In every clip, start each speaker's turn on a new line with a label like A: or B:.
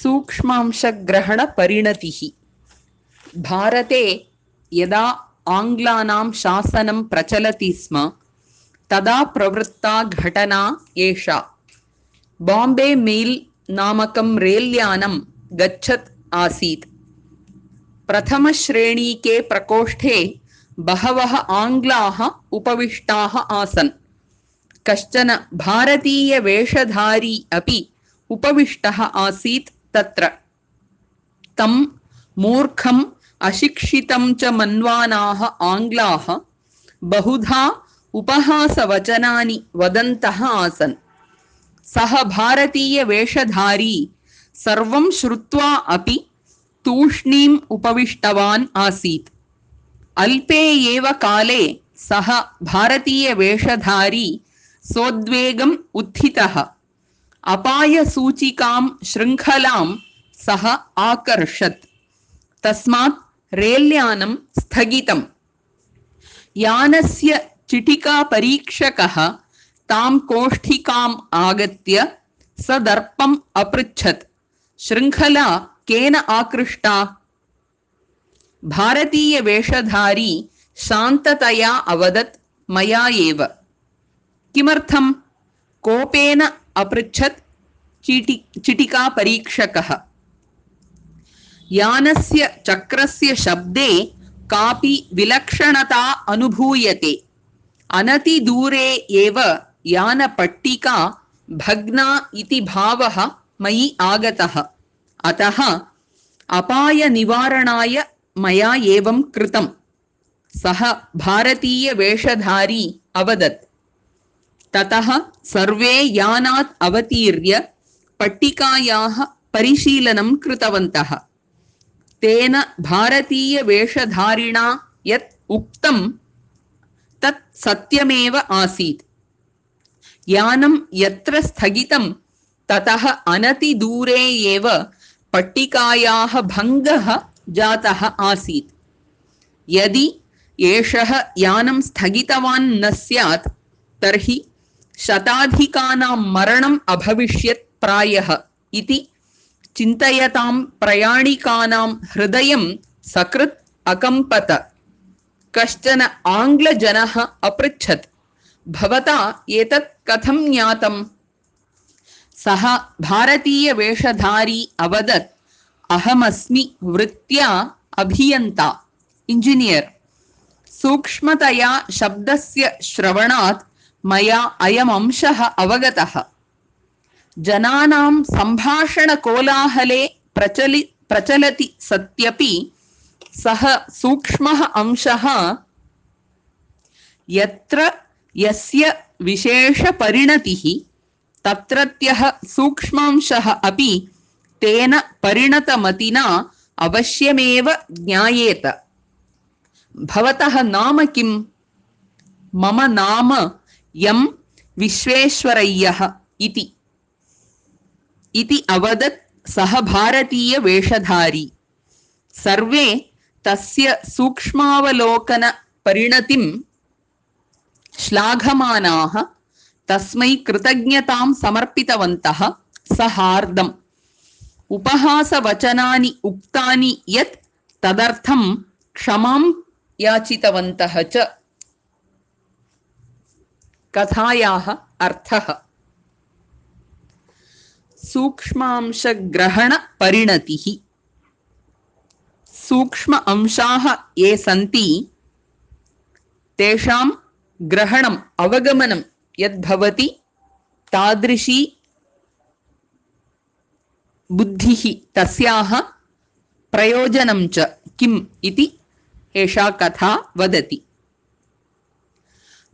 A: सूक्ष्मांशग्रहणपरिणतिः। भारते यदा आङ्ग्लानां शासनं प्रचलति स्म तदा प्रवृत्ता घटना एषा। बाम्बे मेल् नामकं रेल्यानं गच्छत् आसीत्। प्रथमश्रेणीके प्रकोष्ठे बहवः आङ्ग्लाः उपविष्टाः आसन्। कश्चन भारतीयवेषधारी अपि उपविष्टः आसीत् तत्र। तं मूर्खम् अशिक्षितं च मन्वानाः आङ्ग्लाः बहुधा उपहासवचनानि वदन्तः आसन्। सः भारतीयवेषधारी सर्वं श्रुत्वा अपि तूष्णीम् उपविष्टवान् आसीत्। अल्पे एव काले सः भारतीयवेषधारी सोद्वेगम् उत्थितः। अपायसूचिकां शृङ्खलां सः आकर्षत्। तस्मात् रेल्यानं स्थगितम्। यानस्य चिटिकापरीक्षकः तां कोष्ठिकाम् आगत्य सदर्पम् अपृच्छत्, शृङ्खला केन आकृष्टा? भारतीयवेषधारी शान्ततया अवदत्, मया एव। किमर्थं? कोपेन अपृच्छत् चिटिकापरीक्षकः। यानस्य चक्रस्य शब्दे कापि विलक्षणता अनुभूयते। अनतिदूरे एव यानपट्टिका भग्ना इति भावः मयि आगतः। अतः अपायनिवारणाय मया एवं कृतम्। सः भारतीयवेषधारी अवदत्। ततः सर्वे यानात् अवतीर्य पट्टिकायाः परिशीलनं कृतवन्तः। तेन भारतीयवेषधारिणा यत् उक्तं तत् सत्यमेव आसीत्। यानं यत्र स्थगितं ततः अनतिदूरे एव पट्टिकायाः भङ्गः जातः आसीत्। यदि एषः यानं स्थगितवान् न स्यात् तर्हि शताधिकानां मरणम् अभविष्यत् प्रायः इति चिन्तयतां प्रयाणिकानां हृदयं सकृत् अकम्पत। कश्चन आङ्ग्लजनः अपृच्छत्, भवता एतत् कथं ज्ञातम्? सः भारतीयवेषधारी अवदत्, अहमस्मि वृत्त्या अभियन्ता, इंजिनियर्। सूक्ष्मतया शब्दस्य श्रवणात् मया अयमंशः अवगतः। जनानां सम्भाषणकोलाहले प्रचलति सत्यपि सः सूक्ष्मः अंशः यत्र यस्य विशेषपरिणतिः तत्रत्यः सूक्ष्मांशः अपि तेन परिणतमतिना अवश्यमेव ज्ञायेत। भवतः नाम किम्? मम नाम एम् विश्वेश्वरय्यः इति अवदत् सः भारतीयवेषधारी। सर्वे तस्य सूक्ष्मावलोकनपरिणतिं श्लाघमानाः तस्मै कृतज्ञतां समर्पितवन्तः। सहार्दम् उपहासवचनानि उक्तानि यत् तदर्थं क्षमां याचितवन्तः च। कथायाः अर्थः। सूक्ष्मांशग्रहणपरिणतिः। सूक्ष्म अंशाः ये सन्ति तेषां ग्रहणम् अवगमनं यद्भवति तादृशी बुद्धिः तस्याः प्रयोजनं च किम् इति एषा कथा वदति।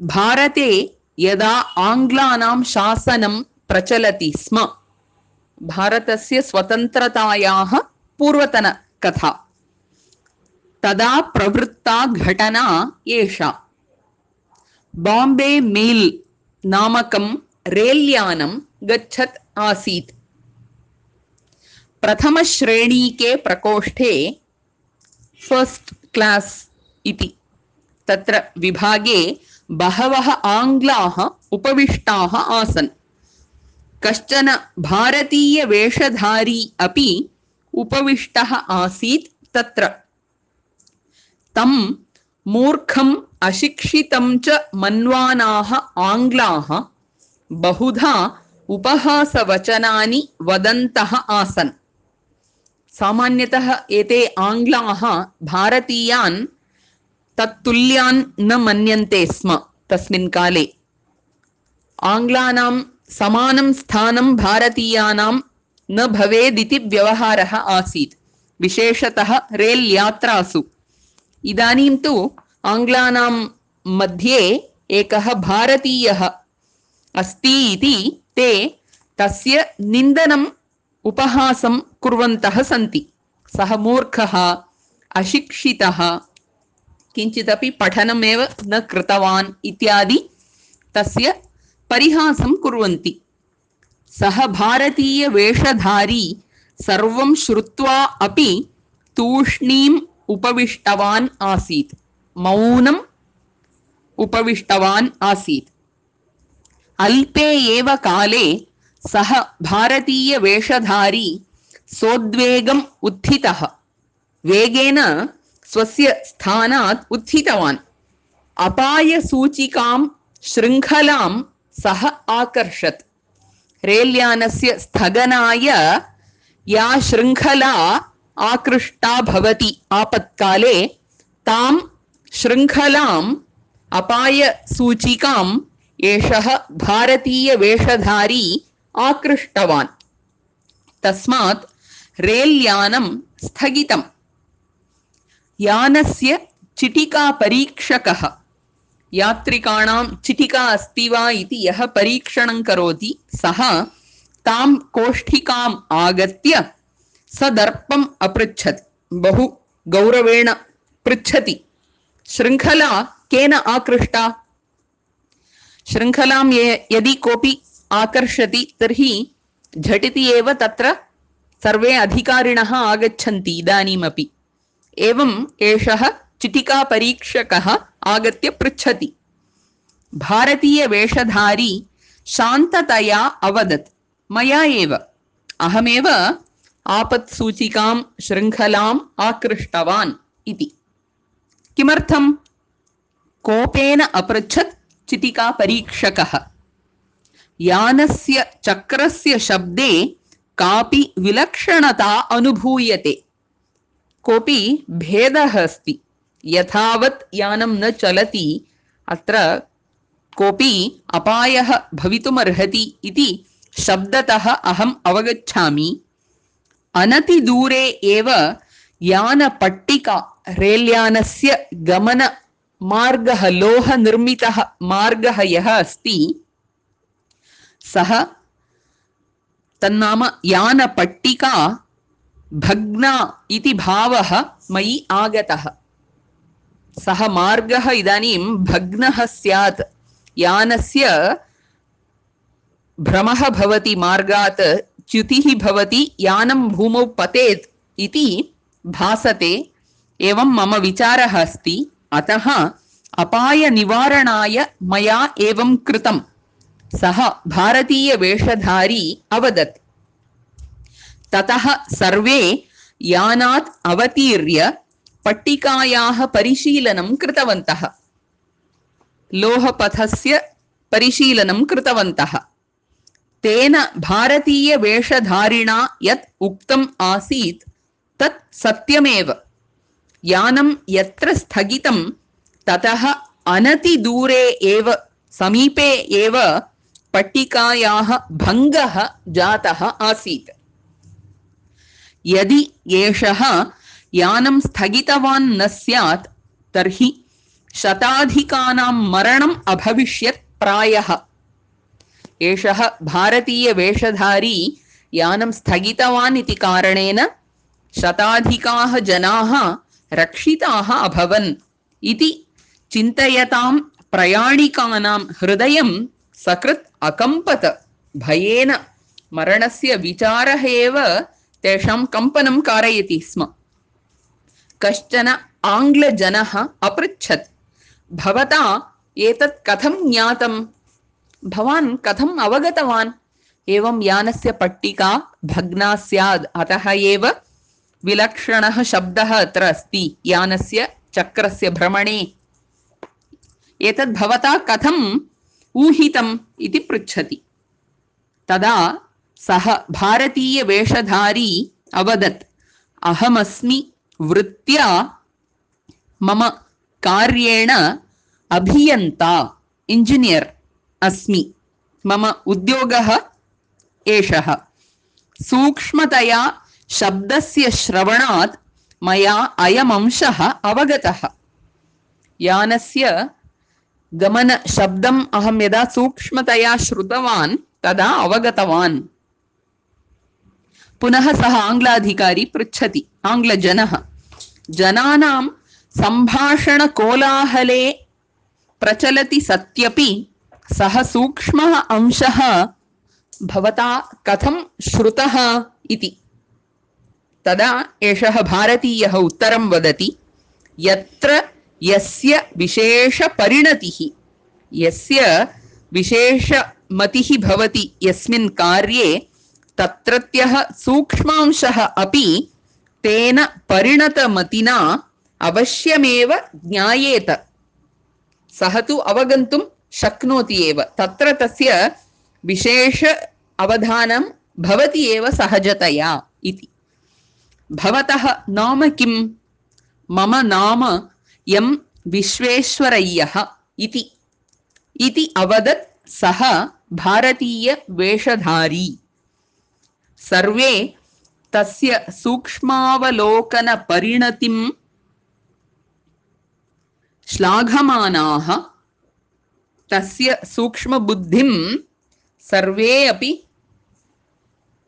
A: भारते यदा आङ्ग्लानां शासनं प्रचलति स्म, भारतस्य स्वतन्त्रतायाः पूर्वतनकथा, तदा प्रवृत्ता घटना एषा। बाम्बे मेल् नामकं रेल्यानं गच्छत् आसीत्। प्रथमश्रेणीके प्रकोष्ठे फस्ट् क्लास् इति तत्र विभागे बहवः आङ्ग्लाः उपविष्टाः आसन्। कश्चन भारतीयवेषधारी अपि उपविष्टः आसीत् तत्र। तं मूर्खम् अशिक्षितं च मन्वानाः आङ्ग्लाः बहुधा उपहासवचनानि वदन्तः आसन्। सामान्यतः एते आङ्ग्लाः भारतीयान् तत्तुल्यान् न मन्यन्ते स्म। तस्मिन् काले आङ्ग्लानां समानं स्थानं भारतीयानां न भवेदिति व्यवहारः आसीत्, विशेषतः रेल् यात्रासु। इदानीं तु आङ्ग्लानां मध्ये एकः भारतीयः अस्ति इति ते तस्य निन्दनम् उपहासं कुर्वन्तः सन्ति। सः मूर्खः, अशिक्षितः, किञ्चिदपि पठनमेव न कृतवान् इत्यादि तस्य परिहासं कुर्वन्ति। सः भारतीयवेषधारी सर्वं श्रुत्वा अपि तूष्णीम् उपविष्टवान् आसीत्, मौनम् उपविष्टवान् आसीत्। अल्पे एव काले सः भारतीयवेषधारी सोद्वेगम् उत्थितः, वेगेन स्वस्य स्थानात् उत्थितवान्। अपायसूचिकां शृङ्खलां सः आकर्षत्। रेल्यानस्य स्थगनाय या शृङ्खला आकृष्टा भवति आपत्काले, तां शृङ्खलाम् अपायसूचिकाम् एषः भारतीयवेषधारी आकृष्टवान्। तस्मात् रेल्यानं स्थगितम्। यानस्य चिटिकापरीक्षकः, यात्रिकाणां चिटिका अस्ति वा इति यः परीक्षणं करोति, सः तां कोष्ठिकाम् आगत्य सदर्पम् अपृच्छत्। बहु गौरवेण पृच्छति, शृङ्खला केन आकृष्टा? शृङ्खलां यदि कोऽपि आकर्षति तर्हि झटिति एव तत्र सर्वे अधिकारिणः आगच्छन्ति इदानीमपि। एवम् एषः चिटिकापरीक्षकः आगत्य पृच्छति। भारतीयवेषधारी शान्ततया अवदत्, मया एव, अहमेव आपत्सूचिकां शृङ्खलाम् आकृष्टवान् इति। किमर्थम्? कोपेन अपृच्छत् चिटिकापरीक्षकः। यानस्य चक्रस्य शब्दे कापि विलक्षणता अनुभूयते, कोऽपि भेदः अस्ति। यथावत् यानं न चलति अत्र कोऽपि अपायः भवितुमर्हति इति शब्दतः अहम् अवगच्छामि। अनतिदूरे एव यानपट्टिका, रेल्यानस्य गमनमार्गः, लोहनिर्मितः मार्गः यः अस्ति सः, तन्नाम यानपट्टिका भग्ना इति भावः मयि आगतः। सः मार्गः इदानीं भग्नः स्यात्, यानस्य भ्रमः भवति, मार्गात् च्युतिः भवति, यानं भूमौ पतेत् इति भासते। एवं मम विचारः अस्ति, अतः अपायनिवारणाय मया एवं कृतम्, सः भारतीयवेषधारी अवदत्। ततः सर्वे यानात् अवतीर्य पट्टिकायाः परिशीलनं कृतवन्तः, लोहपथस्य परिशीलनं कृतवन्तः। तेन भारतीयवेषधारिणा यत् उक्तम् आसीत् तत् सत्यमेव। यानं यत्र स्थगितं ततः अनतिदूरे एव, समीपे एव पट्टिकायाः भङ्गः जातः आसीत्। यदि एषः यानं स्थगितवान् न स्यात् तर्हि शताधिकानां मरणम् अभविष्यत् प्रायः। एषः भारतीयवेषधारी यानं स्थगितवान् इति कारणेन शताधिकाः जनाः रक्षिताः अभवन् इति चिन्तयतां प्रयाणिकानां हृदयं सकृत् अकम्पत। भयेन मरणस्य विचारः एव तेषां कम्पनं कारयति स्म। कश्चन आङ्ग्लजनः अपृच्छत्, भवता एतत् कथं ज्ञातं? भवान् कथम् अवगतवान्? एवं यानस्य पट्टिका भग्ना स्यात्, अतः एव विलक्षणः शब्दः अत्र अस्ति यानस्य चक्रस्य भ्रमणे। एतद् भवता कथम् ऊहितम् इति पृच्छति। तदा सः भारतीयवेषधारी अवदत्, अहमस्मि वृत्त्या मम कार्येण अभियन्ता, इंजिनियर् अस्मि, मम उद्योगः एषः। सूक्ष्मतया शब्दस्य श्रवणात् मया अयमंशः अवगतः। यानस्य गमनशब्दम् अहं यदा सूक्ष्मतया श्रुतवान् तदा अवगतवान्। पुनः सः आङ्ग्लाधिकारी पृच्छति, आङ्ग्लजनः, जनानां सम्भाषणकोलाहले प्रचलति सत्यपि सः सूक्ष्मः अंशः भवता कथं श्रुतः इति। तदा एषः भारतीयः उत्तरं वदति, यत्र यस्य विशेषपरिणतिः, यस्य विशेषमतिः भवति यस्मिन् कार्ये, तत्रत्यः सूक्ष्मांशः अपि तेन परिणतमतिना अवश्यमेव ज्ञायेत। सः तु अवगन्तुं शक्नोति एव, तत्र तस्य विशेष अवधानं भवति एव सहजतया इति। भवतः नाम किं? मम नाम यं विश्वेश्वरय्यः इति अवदत् सः भारतीयवेषधारी। सर्वे तस्य सूक्ष्मावलोकनपरिणतिं श्लाघमानाः, तस्य सूक्ष्मबुद्धिं सर्वे अपि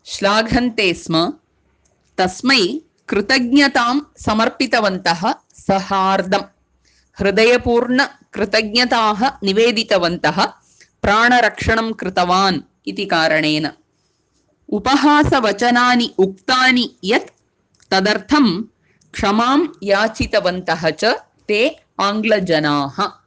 A: श्लाघन्ते स्म। तस्मै कृतज्ञतां समर्पितवन्तः, सहार्दं हृदयपूर्ण कृतज्ञताः निवेदितवन्तः, प्राणरक्षणं कृतवान् इति कारणेन। उपहासवचनानि उक्तानि यत् तदर्थं क्षमां याचितवन्तः च ते आङ्ग्लजनाः।